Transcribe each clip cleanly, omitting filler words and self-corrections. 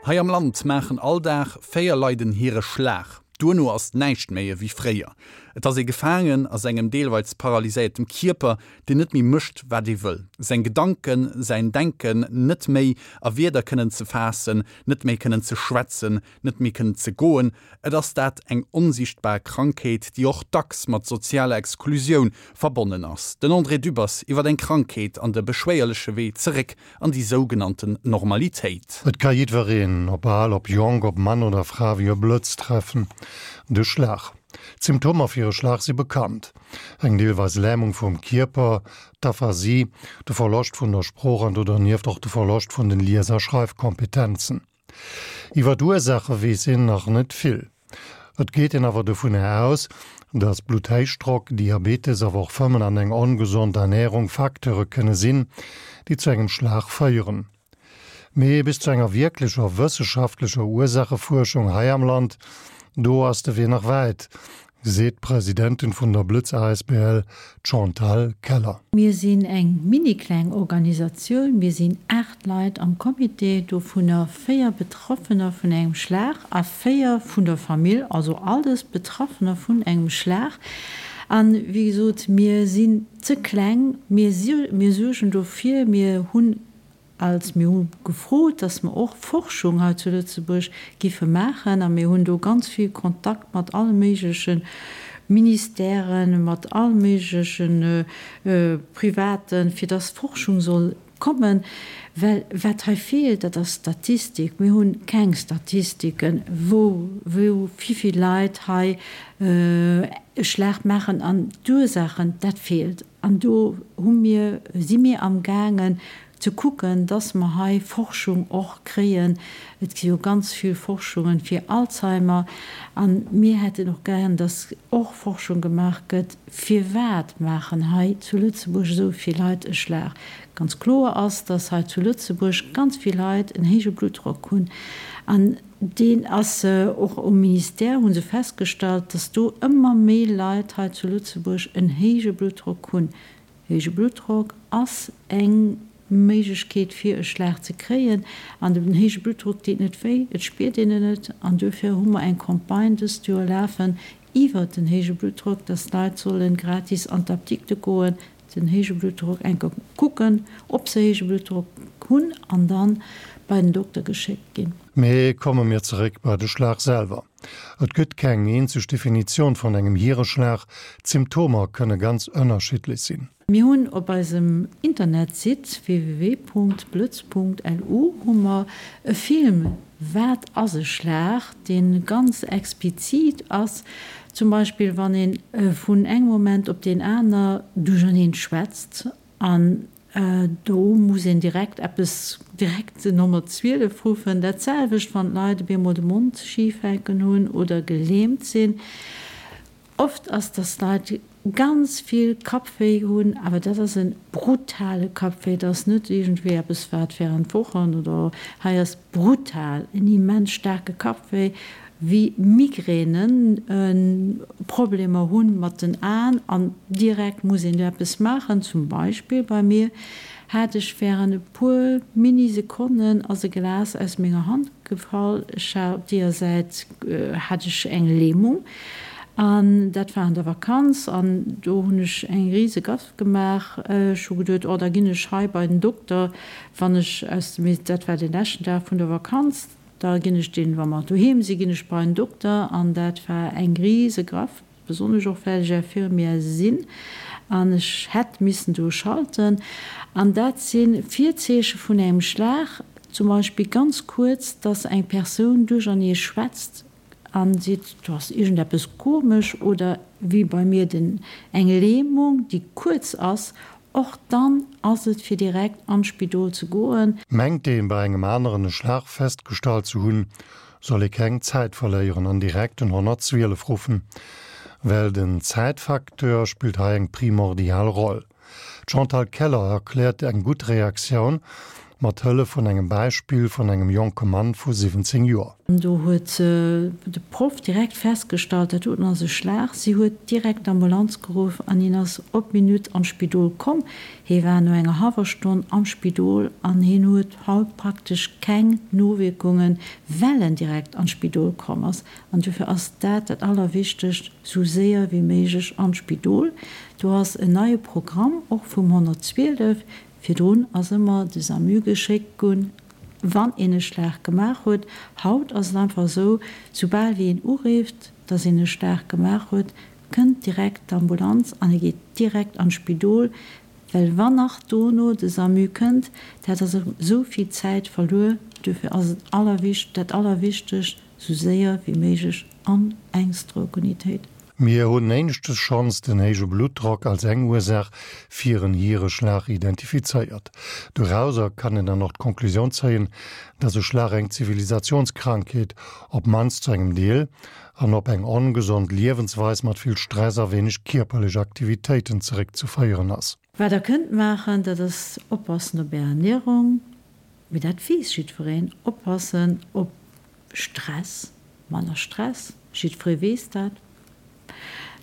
Hei am Land maachen all Dag 4 Leit en Hireschlag. Duerno ass näischt méi ewéi fréier. Et ass ee gefaangen a sengem deelweils paralyséiertem Kierper, deen net méi mécht, wat ee wëll. Seng Gedanken, säin Denken net méi a Wierder kënnen ze faassen, net méi kënnen ze schwätzen, net méi kënnen ze goen. Et ass dat eng onsiichtbar Krankheet, déi och dacks mat sozialer Exklusioun verbonnen ass. Den André Dübbers iwwer eng Krankheet an de beschwéierleche Wee zeréck an déi sougenannten Normalitéit. Et ka jiddwereen, ob al, ob jonk, ob Mann oder Fra, wéi e Blëtz treffen, de Schlag. D'Symptomer fir e Schlag si bekannt, eng deelweis Lämung vum Kierper, d'Aphasie, de Verloscht vun der Sprooch an do dernieft och de Verloscht vun den Lies a Schreifkompetenzen. Iwwer d'Ursaache weess een nach net vill. Et geet een awer dovunner aus, datt Blutthéichdrock, Diabetes, awer och Fëmmen an eng ongesond Ernärung Facteure kënne sinn, déi zu engem Schlag féieren. Mee bis zu enger wierklecher wësseschaftlecher Ursaachefuerschung hei am Land, do ass de Wee nach wäit, seet d'Presidentin vun der Blëtz asbl, d'Chantal Keller. Mir sinn eng mini-kleng Organisatioun, mir sinn 8 Leit am Comité, dovunner 4 Betraffener vun engem Schlag a 4 vun der Famill, also alles Betraffener vun engem Schlag. An, wéi gesot, mir sinn ze kleng, mir suergen dofir, mir hunn Als mir hu gefrot, dass mer och Forschung hei zu Lëtzebuerg giffe maachen, a mir hunn do ganz vill Kontakt mat alle méigleche Ministèren, mat all méigleche Privaten, fir dass Forschung soll kommen, well wat hei feelt, dat ass Statistik. Mir hu keng Statistiken, wou, wou, wivill Leit hei e Schlag maachen an d'Ursaachen, dat feelt. An do hu mir, si mir amgaangen ze kucken, dass mer hei Forschung och kréien. Et gi jo ganz vill Forschungen fir Alzheimer. A mir hätten och gären, dass och Forschung gemaach gëtt, firwat maachen hei zu Lëtzebuerg esou vill Leit e Schlag. Ganz kloer ass, dass hei zu Lëtzebuerg ganz vill Leit en héije Bluttdrock hunn. An Deen ass och um Ministère, hu se festgestallt, dass do ëmmer méi Leit hei zu Lëtzebuerg en héije Bluttdrock hunn. Héije Bluttdrock ass eng Méiglechkeet fir e Schlag ze kréien. An den héije Bluttdrock deet net wéi, et spiert een en net. An duerfir hu mer eng Campagne dëst Joer lafen iwwert den héije Bluttdrock, dass d'Leit solle gratis an d'Apdikte goen, den héije Bluttdrock enker kucken, ob se héije Bluttdrock hunn an dann bei den Dokter geschéckt ginn. Mee komme mir zeréck bei de Schlag selwer. Et gëtt keng eenzeg Definitioun vun engem Hiereschlag, d'Symptomer kënne ganz ënnerschiddlech sinn. Mir hunn op eisem Internetsite www.blëtz.lu hu mer e Film Wat ass e Schlag, dee ganz explizit ass, zum Beispill wann ee vun engem Moment op deen aner duercherneen schwätzt an do muss een direkt eppes, direkt den 112 ruffen. Dat selwecht wann d'Leit op eemol de Mond schif hänken hunn oder gelähmt sinn. Oft ass, dass d'Leit ganz vill Kappwéi hunn, awer dat ass e brutale Kappwéi, dat ass net iergendwéi eppes wat während Wochen oder hei ass brutal, en immens staarke Kappwéi, wéi Migränen, Problemer hu mat den Aen an direkt muss een do eppes maachen. Zum Beispill bei mir hat ech während e puer Mini-Sekonnen ass e Glas aus menger Hand gefall, ech hat op deeër Säit hat ech eng Lähmung an dat war an der Vakanz an do hunn ech eng rise Gaffe gemaach. Ech hu geduet, oh da ginn ech hei bei den Dokter, wann ech aus dem, dat war dee leschten Dag vun der Vakanz, da ginn ech deen, wa mer doheem sinn, ginn ech bei en Dokter an dat war eng rise Gaffe. Besonnesch och well ech Infirmière sinn an ech hätt missen do schalten. An dat si Virzeeche vun engem Schlag, zum Beispill ganz kuerz, dass eng Persoun duerchernee schwätzt a seet, do ass iergendeppes komesch, oder wéi bei mir den eng Lähmung, déi kuerz ass, och dann ass et fir direkt an d'Spidol ze goen. Mengt een bei engem aneren e Schlag festgestallt ze hunn, soll ee keng Zäit verléieren an direkt den 112 ruffen, well den Zäitfacteur spillt hei eng primordial Roll. D'Chantal Keller erkläert eng gutt Reaktioun. Mat Hëllef vun engem Beispill vun engem jonke Mann vu 17 Joer. Do huet de Proff direkt festgestallt, dat doten ass e Schlag. Si huet direkt d'Ambulanz geruff an hien ass op d'Minutt an d'Spidol komm. Hie war no enger hallwer Stonn am Spidol an hien huet haut praktesch keng Nowierkungen, well en direkt an d'Spidol komm ass. An dofir ass dat dat Allerwichtegst, sou séier wéi méiglech an d'Spidol. Do ass en neie Programm och vum 112, Virdrun ass ëmmer de SAMU geschéckt gunn, wann een e Schlag gemaach huet. Haut ass et einfach esou, soubal wéi een urifft, dass een e Schlag gemaach huet, kënnt direkt d'Ambulanz an e geet direkt an d'Spidol, well wann nach dono de SAMU kënnt, dat ass erëm esou vill Zäit verluer. Duerfir ass et allerwicht, dat Allerwichtegst, sou séier wéi méiglech an eng Stroke-Unitéit. Mir hunn éineschtes schonns den héije Bluttdrock als eng Ursaach fir en Hiereschlag identifizéiert. Dorauser kann een dann och d'Konklusioun zéien, dass e Schlag eng Zivilisationskrankheet, op mannst zu engem Deel, an op eng ongesond Liewensweis mat vill Stress a wéineg kierperlech Aktivitéiten zeréckzeféieren ass. Wat der kënnt maachen, dat ass oppassen op är Ernierung, mee dat weess jiddwereen, oppassen op Stress, manner Stress, jiddweree weess dat.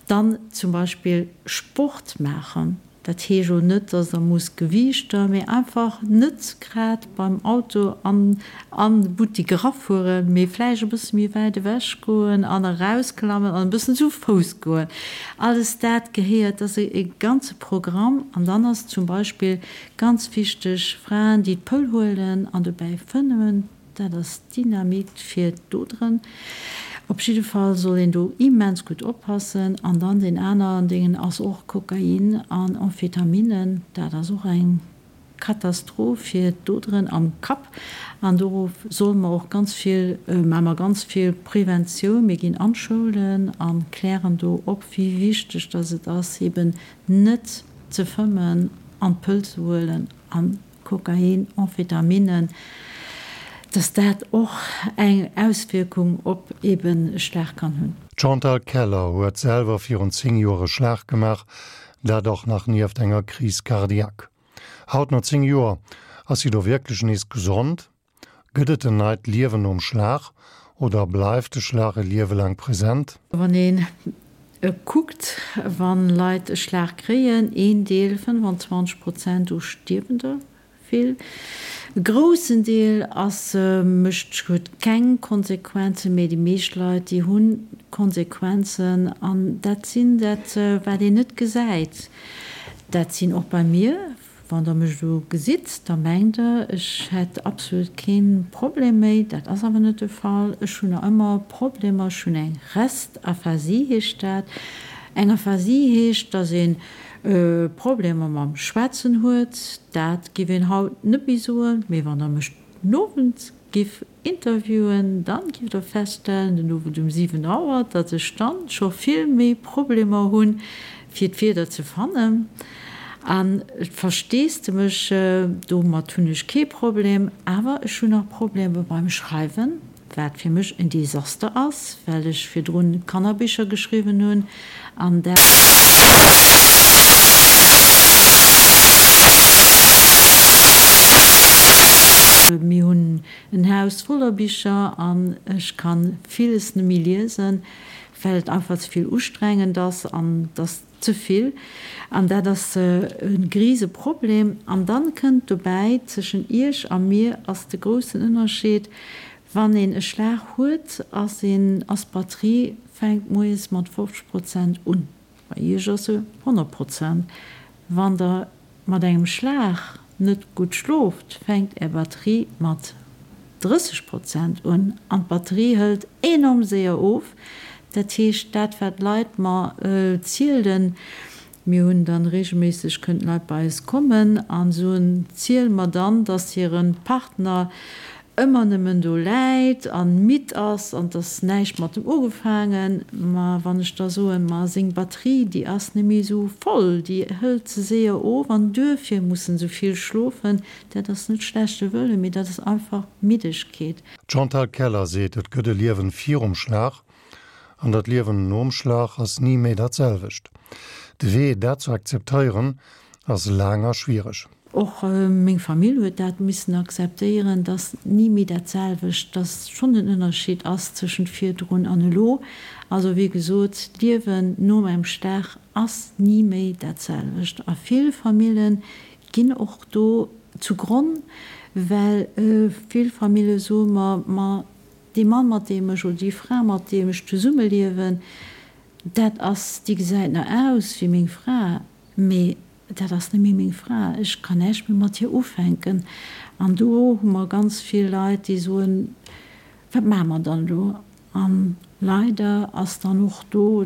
Dann zum Beispill Sport maachen, dat heescht elo net, dass der musst Gewiichter, mee einfach net grad beim Auto an an de Buttik erafueren, mee vläicht e bësse méi wäit ewech goen an erausklammen an e bëssen zu Fouss goen. Alles dat gehéiert, dat ass e ganze Programm. An dann ass zum Beispill ganz wichteg, Fraen, déi d'Pëll huelen an dobäi fëmmen, Dat ass Dynamit fir d'Oderen. Op jidde Fall soll een do immens gutt oppassen. An dann deen aneren Dingen ass och Kokain an Amphetaminen. Dat ass och eng Katastroph fir d'Oderen am Kapp. An do solle mer och ganz vill, maache mer ganz vill Preventioun. Mir ginn an d'Schoulen a klären do op, wéi wichteg dass et ass, eben net ze fëmmen an d'Pëll ze huelen an Kokain, Amphetaminen, dass dat och eng Auswierkung op eben e Schlag kann hunn. D'Chantal Keller huet selwer virun 10 Joer e Schlag gemaach, dat och nach nieft enger Crise cardiaque. Haut no 10 Joer ass si do wierklech nees gesond? Gëtt et en neit Liewen nom Schlag oder bleift de Schlag e Liewe laang present? Wann een kuckt, wa Leit e Schlag kréien, een Deel, 25 Prozent, do stierwen der vill. E groussen Deel ass, mécht, huet keng Konsequenzen, mee déi meescht Leit, déi hu Konsequenzen an dat sinn dat, wat een net gesäit. Dat sinn och bei mir Wann der mech elo gesitt, da mengt der, ech hätt absolut kee Problem méi. Dat ass awer net de Fall. Ech hunn nach ëmmer Problemer. Ech hunn eng Restaphasie, heescht dat. Eng Aphasie heescht, dass ee Problemer mam Schwätzen huet. Dat giff een haut net méi soen. Mee wann der mech den Owend giff interviewen, dann giff der feststellen, den Owend um 7 Auer, datt ech dann scho vill méi Problemer hunn, fir d'Wierder ze fannen. An Versteesdemech, domat hunn ech kee Problem, awer ech hunn nach Problemer beim Schreiwen, wat fir mech en Desaster ass, well ech virdrun Kannerbicher geschriwwen hunn an dat. Mir hunn en Haus voller Bicher an ech ka villes net méi liesen, well et einfach ze vill ustrengend ass an et ass ze vill. An dat ass e grise Problem. An dann kënnt dobäi, zwëschen Iech a mir ass de groussen Ënnerscheed, Wann een e Schlag huet, ass een, ass d'Batterie fänkt moies mat 50 Prozent un. Bei Iech ass se 100 Prozent. Wann der mat engem Schlag net gutt schlooft, fänkt Är Batterie mat 30 Prozent un an d'Batterie hëlt enorm séier of. Dat heescht, dat wat d'Leit mer zielen, mir hunn dann regelméisseg kënnen d'Leit bei eis kommen a soen, ziele mer dann, dass hire Partner ëmmer nëmmen do läit an midd ass an t'ass näischt mat em ugefaangen. Ma wann ech da soen, ma seng Batterie déi ass net méi esou voll, déi hëlt ze séier of an duerfir muss en esou vill schlofen, dat ass net schlechte Wëllen, mee dat ass einfach Middegkeet. D'Chantal Keller seet, et gëtt e Liewen virum Schlag an dat Liewen nom Schlag ass ni méi dat selwecht. De Wee dat ze akzeptéieren ass laang a schwiereg. Och meng Famill huet dat missen akzeptéieren, dass ni méi dat selwecht, dass schonn en Ënnerscheed ass tëschent virdrun an elo. Also wéi gesot, d'Liewen nom engem Schlag ass ni méi dat selwecht a vill Famille ginn och do zu Gronn, well vill Famille soe mer, ma dee Mann mat deem ech oder déi Fra mat deem ech zesummeliewen, dat ass, déi gesäit nach aus wéi meng Fra, mee dat ass net méi meng Fra, ech kann näischt méi mat hir ufänken. An do hu mer ganz vill Leit, déi soen, Wat maache mer dann elo? A leider ass dann och do,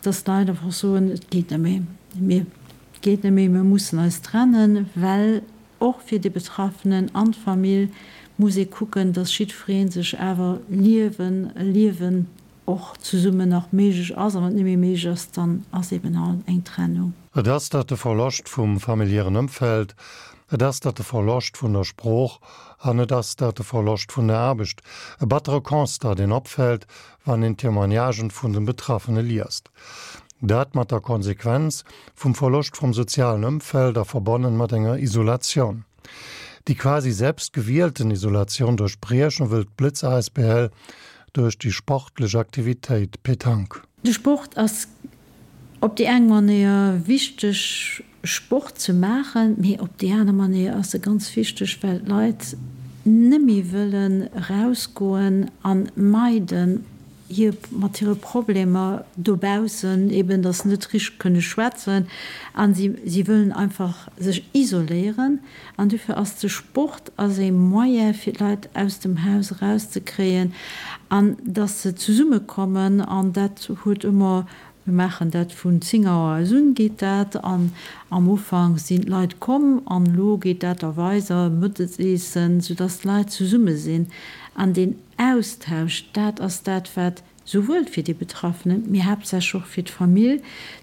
dass d'Leit einfach soen, Et geet net méi, mir, et geet net méi, mir mussen eis trennen, well och fir de Betraffenen an d'Famill muss ee kucken, dass jiddweree sech awer liewen, e Liewen och zesummen nach méiglech ass. A wann et net méi méiglech ass, dann ass eben halt eng Trennung. Et ass dat de Verloscht vum familiären Ëmfeld, et ass dat de Verloscht vun der Sprooch an et ass dat de Verloscht vun der Aarbecht. E battere Constat, deen opfält, wann een d'Témoignagen vun den Betraffene liest. Dat mat der Konsequenz vum Verloscht vum sozialen Ëmfeld a verbonnen mat enger Isolatioun. Déi quasi selbst gewielten Isolatioun duerchbriechen wëll d'Blëtz asbl duerch déi sportlech Aktivitéit Petanque. De Sport ass op déi eng Manéier wichteg Sport ze maachen, mee op déi aner Manéier ass e ganz wichteg, well d'Leit nëmme wëllen erausgoen a meiden hir mat hire Problemer dobaussen, eben datt se net richteg kënne schwätzen a si si wëllen einfach sech isoléieren. An dofir ass de Sport ass ee Moyen fir d'Leit aus dem Haus erauszekréien an datt se zesummekommen an dat huet ëmmer Mir maachen dat vun 10 Auer aus un geet dat an am Ufank sinn d'Leit komm an elo geet dat da weiser, Mëttesessen, soudass d'Leit zesumme sinn an deen Austausch, dat ass dat wat souwuel fir déi Betraffenen, mee haaptsächlech och fir d'Famill,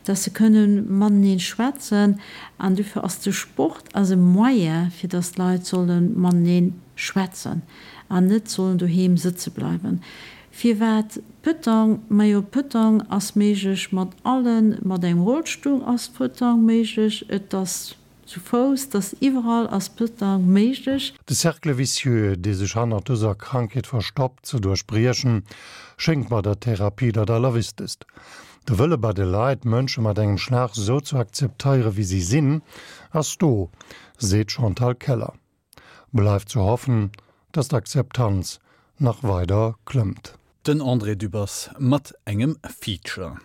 dass se kënne matenee schwätzen an dofir ass de Sport ass e Moyen fir dass d'Leit solle matenee schwätzen an net sollen doheem sëtze bleiwen. Firwat Pëtang? Majo Pëtang ass méiglech mat allen, mat engem Rollstull ass Pëtang méiglech, et ass zu Fouss, et ass iwwerall ass Pëtang méiglech. De Cercle vicieux, dee sech hannert dëser Krankheet verstoppt, ze duerchbriechen, schéngt bei der Therapie dat Allerwichtegst. De Wëlle bei de Leit, Mënsche mat engem Schlag esou ze akzepteiere wéi si sinn, ass do, seet d'Chantal Keller. Bleift ze hoffen, dass d'Akzeptanz nach weider klëmmt. Den André Dübbers mat engem Feature.